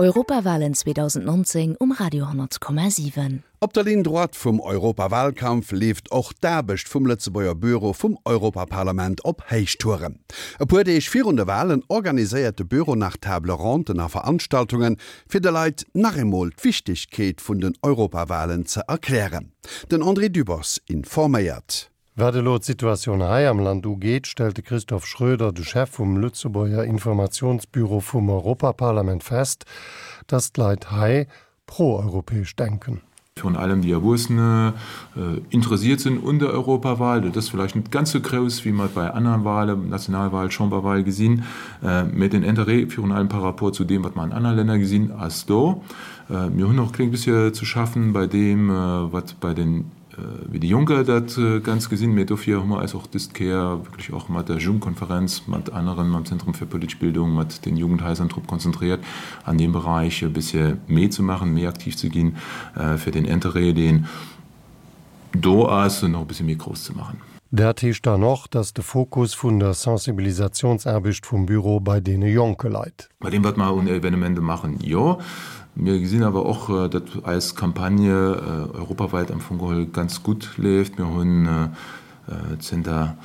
Europawalen 2019 um Radio 10,7. Op der Ligne droite vum Europawalkampf leeft och d'Aarbecht vum Lëtzebuerger Büro vum Europaparlament op Héichtouren. E puer Deeg virun de Walen organiséiert de Büro nach Table Ronden a Veranstaltungen, fir de Leit nach eemol d'Wichtegkeet vun den Europawalen ze erklären. Den André Dübbers informéiert. Wat elo d'Situatioun hei am Land ugeet, stellt de Christophe Schroeder, de Chef vum Lëtzebuerger Informatiounsbüro vum Europaparlament fest, datt d'Leit hei pro-europäesch denken. Virun allem déi Erwuessene interessiert sinn un der Europawahl. Dat ass vläicht net ganz sou grouss, wéi mer et bei anere Wahlen, Nationalwahl, Chamberwahl, gesinn, mä den Interêt virun allem par rapport zu deem, wat mer an anere Länner gesinn, ass do. Mir hunn och e kléng bëssche ze schaffen bei deem, wat bei den wéi déi Jonker dat Ganzt gesinn, mee dofir hu mer eis och dëst Kéier wierklech och mat der Jugendkonferenz, mat aneren, mam Zentrum fir politesch Bildung, mat den Jugendhaiser drop konzentriert, an deem Beräich e bëssche méi ze maachen, méi aktiv ze ginn, fir den Interêt, deen do ass, nach e bëssche méi grouss ze maachen. Dat heescht dann och, dass de Fokus vun der Sensibilisationsaarbecht vum Büro bei deene Jonke leit. Bei deem, wat mer un Evenementen maachen, jo. Mir gesinn awer och, datt eis Campagne europawäit am Fong geholl ganz gutt leeft. Mir hunn zënter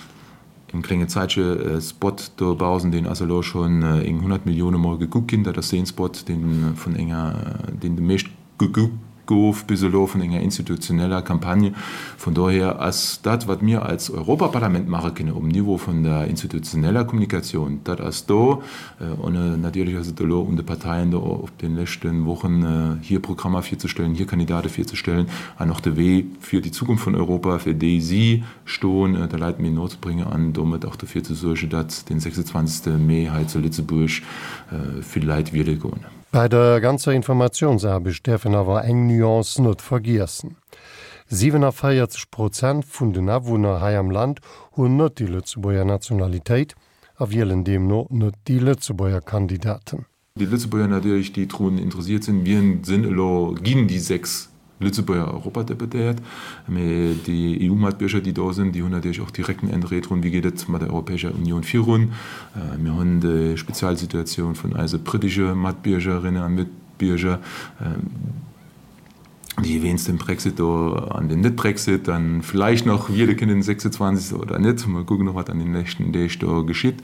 engem klénge Zäitche e Spot dobausen, deen ass elo schonn eng 100 Millioune Mol gekuckt ginn. Dat ass dee Spot, dee vun enger, deen de meescht gekuckt gouf bis elo vun enger institutioneller Campagne. Vun dohier ass dat, wat mir als Europaparlament maache kënne um Niveau vun der institutioneller Kommunikatioun, dat ass do. An natierlech ass et elo un de Parteien, do op de leschte Wochen hir Programmer virzestellen, hir Kandidate virzestellen an och de Wee fir déi Zukunft vun Europa, fir déi si stoen, de Leit méi no ze bréngen an domat och dofir ze suergen, datt den 26 Mee hei zu Lëtzebuerg vill Leit wiele goen. Bei der ganzer Informatiounsaarbecht däerf een awer eng Nuance net vergiessen, 47 Prozent vun den Awunner hei am Land hunn net déi Lëtzebuerger Nationalitéit a wielen deemno net déi Lëtzebuerger Kandidaten. Déi Lëtzebuerger natierlech, déi drun interessiert sinn, wien sinn elo, ginn déi 6 Lëtzebuerger Europadeputéiert, mee déi EU-Matbierger, déi do sinn, déi hunn natierlech och direkten Interêt drun, wéi geet et mat der Europäescher Unioun virun. Mir hunn déi Spezialsituatioun vun eise brittesche Matbiergerinnen a Matbierger, déi wéinst dem Brexit do an dem Net-Brexit dann vläicht nach wiele kënnen den 26. oder net, mol kucken och wat an den nächsten Deeg do geschitt,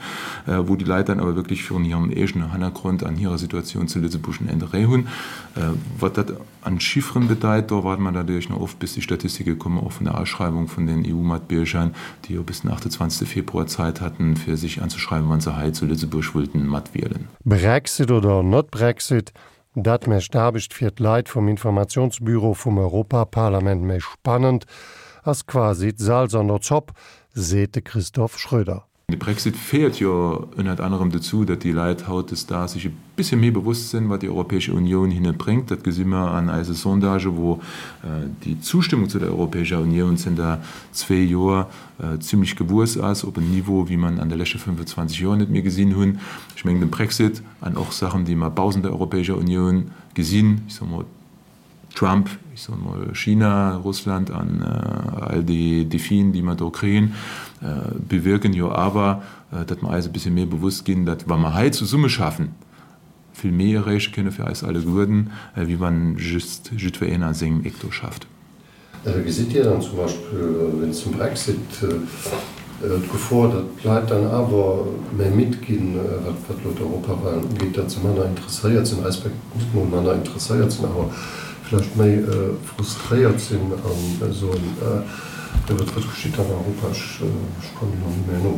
wou déi Leit dann awer wierklech virun hirem eegenen Hannergrond an hirer Situatioun zu Lëtzebuerg en Interêt hunn. Wat dat an Chifferen bedeit, do waarde mer natierlech nach of bis déi Statistike kommen, och vun der Aschreiwung vun den EU-Matbierger, déi jo bis den 28. Februar Zäit hatten, fir sech anzeschreiwen, wa se hei zu Lëtzebuerg wëllten matwielen. Brexit oder not Brexit, Dat mécht d'Aarbecht fir d'Leit vum Informationsbüro vum Europaparlament méi spannend, ass quasi d'Salz an der Zopp, seet de Christophe Schröder. De Brexit féiert jo ënnert anerem dozou, datt déi Leit hautdesdaags sech e bëssche méi bewosst sinn, wat déi Europäesche Unioun hinne bréngt. Dat gesi mer an eise Sondagen, wou déi Zustëmmung zu der Europäescher Unioun zënter zwee Joer zimlech gewuess ass op en Niveau, wéi mer en an de leschte 25 Joer net méi gesinn hunn. Ech mengen, de Brexit an och Saachen, déi mer baussent der Europäescher Unioun gesinn, ech soe mol Trump, ech soe mol China, Russland an all déi Defien, déi mer do kréien, bewierken jo awer, datt mer eis e bëssche méi bewusst ginn, datt wa mer hei zesummeschaffen, vill méi erreeche kënne fir eis alleguerten, wéi wann just jiddwereen a sengem Eck do schafft. Gesitt Dir dann zum Beispill wéinst dem Brexit d'Gefor, datt d'Leit dann awer méi midd ginn, wat elo d'Europawahlen ugeet, datt se manner interesséiert sinn, respekt net mol manner interesséiert sinn, awer vläicht méi frustréiert sinn a soen, jo wat geschitt an Europa, ech kommen elo net méi no.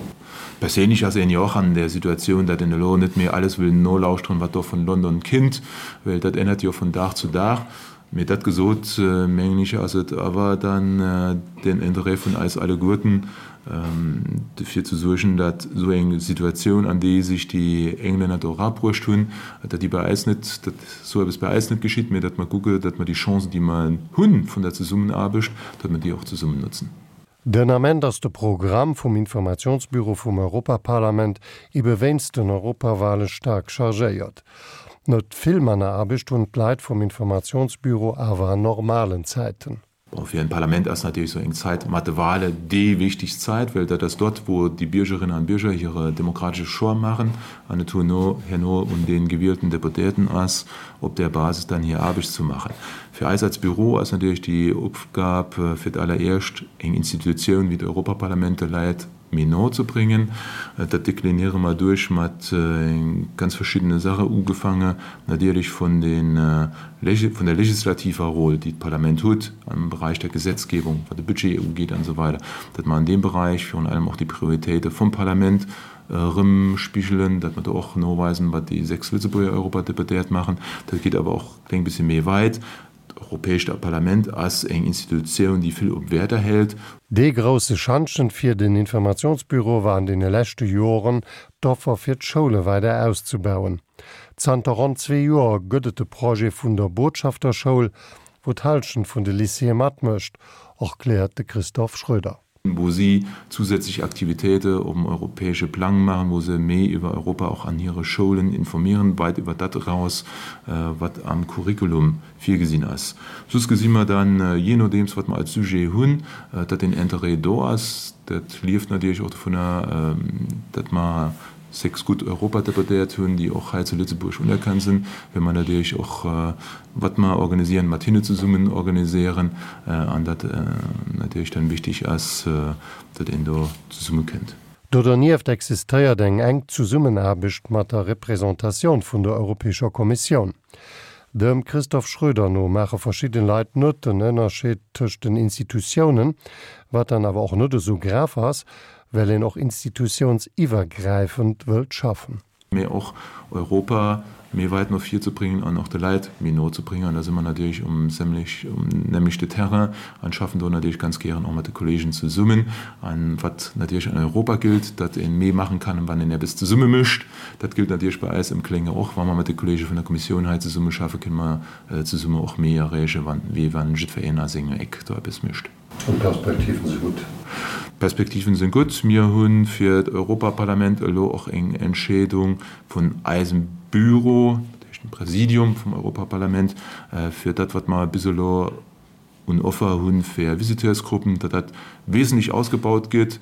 Perséinlech ass een jo och an der Situatioun, datt een elo net méi alles wëll nolauschteren, wat do vun London kinnt, well dat ännert jo vun Dag zu Dag. Mee dat gesot, mengen ech, ass et awer dann den Interêt vun eis alleguerten, dofir ze suergen, datt esou eng Situatioun, an déi sech déi Englänner do erabruecht hunn, datt déi bei eis net, datt esou eppes bei eis net geschitt, mee datt mer kucke, datt mer déi Chancen, déi mer hu vun der Zesummenaarbecht, datt mer déi och zesummen nutzen. Den Ament ass de Programm vum Informationsbüro vum Europaparlament ebe wéinst den Europawale staark chargéiert. Net vill manner Aarbecht hunn d'Leit vum Informationsbüro awer an normalen Zäiten. Bon, fir en Parlament ass natierlech sou eng Zait mat de Wahle déi wichtegst Zait, well dat ass dort, wou déi Biergerinnen an Bierger hire demokratesche Choix maachen an et herno herno un de gewielten Deputéierten ass, op där Basis dann hir Aarbecht ze maachen. Fir eis als Büro ass natierlech déi Opgab fir d'alleréischt eng Institutioun wéi d'Europaparlament de Leit méi no ze bréngen. Dat dekliniere mer duerch mat ganz verschiddene Sache, ugefaange natierlech vun de vun der legislativer Rôle, déi d'Parlament huet am Bereich der Gesetzgebung, wat de Budget ugeet an esou weider, datt mer an deem Bereich virun allem och déi Prioritéite vum Parlament erëmspigelen, datt mer do och noweisen, wat déi 6 Lëtzebuerger Europadeputéiert maachen. Dat geet awer och e kléng bëssche méi weit. D'Europäescht Parlament ass eng Institutioun, déi vill op Wäerter hält. Dee grousse Schantjen fir den Informationsbüro war an deene leschte Joren d'Offer fir d'Schoule weider auszubauen. Zanter ronn zwee Joer gëtt et de Projet vun der Botschafterschoul, wou d'Hallschent vun de Lycéeë matmécht, erkläert de Christophe Schröder. wou si zusätzlich Aktivitéite op dem europäesche Plang maachen, wou se méi iwwer Europa och an hire Schoulen informieren, weit iwwer dat eraus, wat am Curriculum virgesinn ass. Soss gesi mer dann, jee nodeems wat mer als Sujet hunn, datt den Interêt do ass. Dat lieft natierlech och dovunner, datt mer 6 gutt Europadeputéiert hunn, déi och hei zu Lëtzebuerg unerkannt sinn, well mer natierlech och, wat mer organisieren, mat hinne zesummen organisieren an dat natierlech dann wichtig ass, datt een do zesummekënnt. Do dernieft existéiert eng enk Zesummenaarbecht mat der Représentatioun vun der Europäescher Kommissioun. Dem Christoph Schröder no maache verschidden Leit net den Ënnerscheed tëscht den Institutiounen, wat dann awer och net esou grav ass, well een och institutiounsiwwergräifend wëllt schaffen. Mee och Europa méi weit no vir ze bréngen an och de Leit méi no ze bréngen. An da si mer natierlech um nämlechte Terrain an schaffen do natierlech ganz gären och mat de Kollegen zesummen. An wat natierlech an Europa gillt, datt ee méi maachen kann, wann een eppes zesumme mécht, dat gillt natierlech bei eis am Klénge och. Wa mer mat de Kollege vun der Kommissioun hei zesummeschaffen, kënne mer zesumme och méi erreechen, wéi wann jiddwereen a sengem Eck do eppes mécht. An d'Perspektiven si gutt. D'Perspektiven si gutt. Mir hu fir d'Europaparlament elo och eng Entscheedung vun eisem Büro, dat heescht dem Präsidium vum Europaparlament, fir dat, wat mer bis elo un Offer hu fir Visiteursgruppen, datt dat wesentlech ausgebaut gëtt,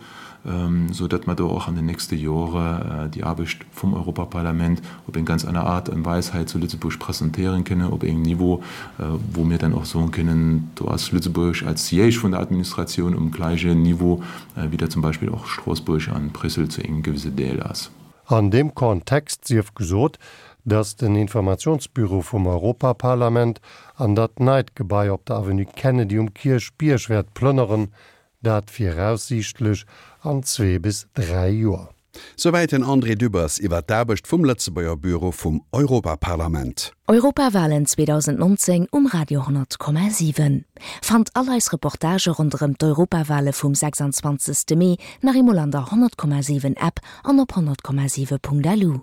esou datt mer do och an den nächste Jore déi Aarbecht vum Europaparlament op eng ganz aner Aart an Weis hei zu Lëtzebuerg presentéieren kënne, op engem Niveau, wou mir dann och soen kënnen, do ass Lëtzebuerg als Siège vun der Administratioun um gläichen Niveau, wéi dat zum Beispill och Stroossbuerg an Bréissel zu engem gewisse Deel ass. An deem Kontext sief gesot, datt den Informationsbüro vum Europaparlament an dat neit Gebai op der Avenue Kennedy um Kierchbierg wäert plënneren, dat viraussiichtlech an zwee bis dräi Joer. Souwäit den André Dübbers iwwer d'Aarbecht vum Lëtzebuerger Büro vum Europaparlament. Europawalen 2019 um Radio 10,7. Fannt all eis Reportagë ronderëm d'Europawale vum 26. Mee nach eemol an der 100,7 App an op 100,7.lu.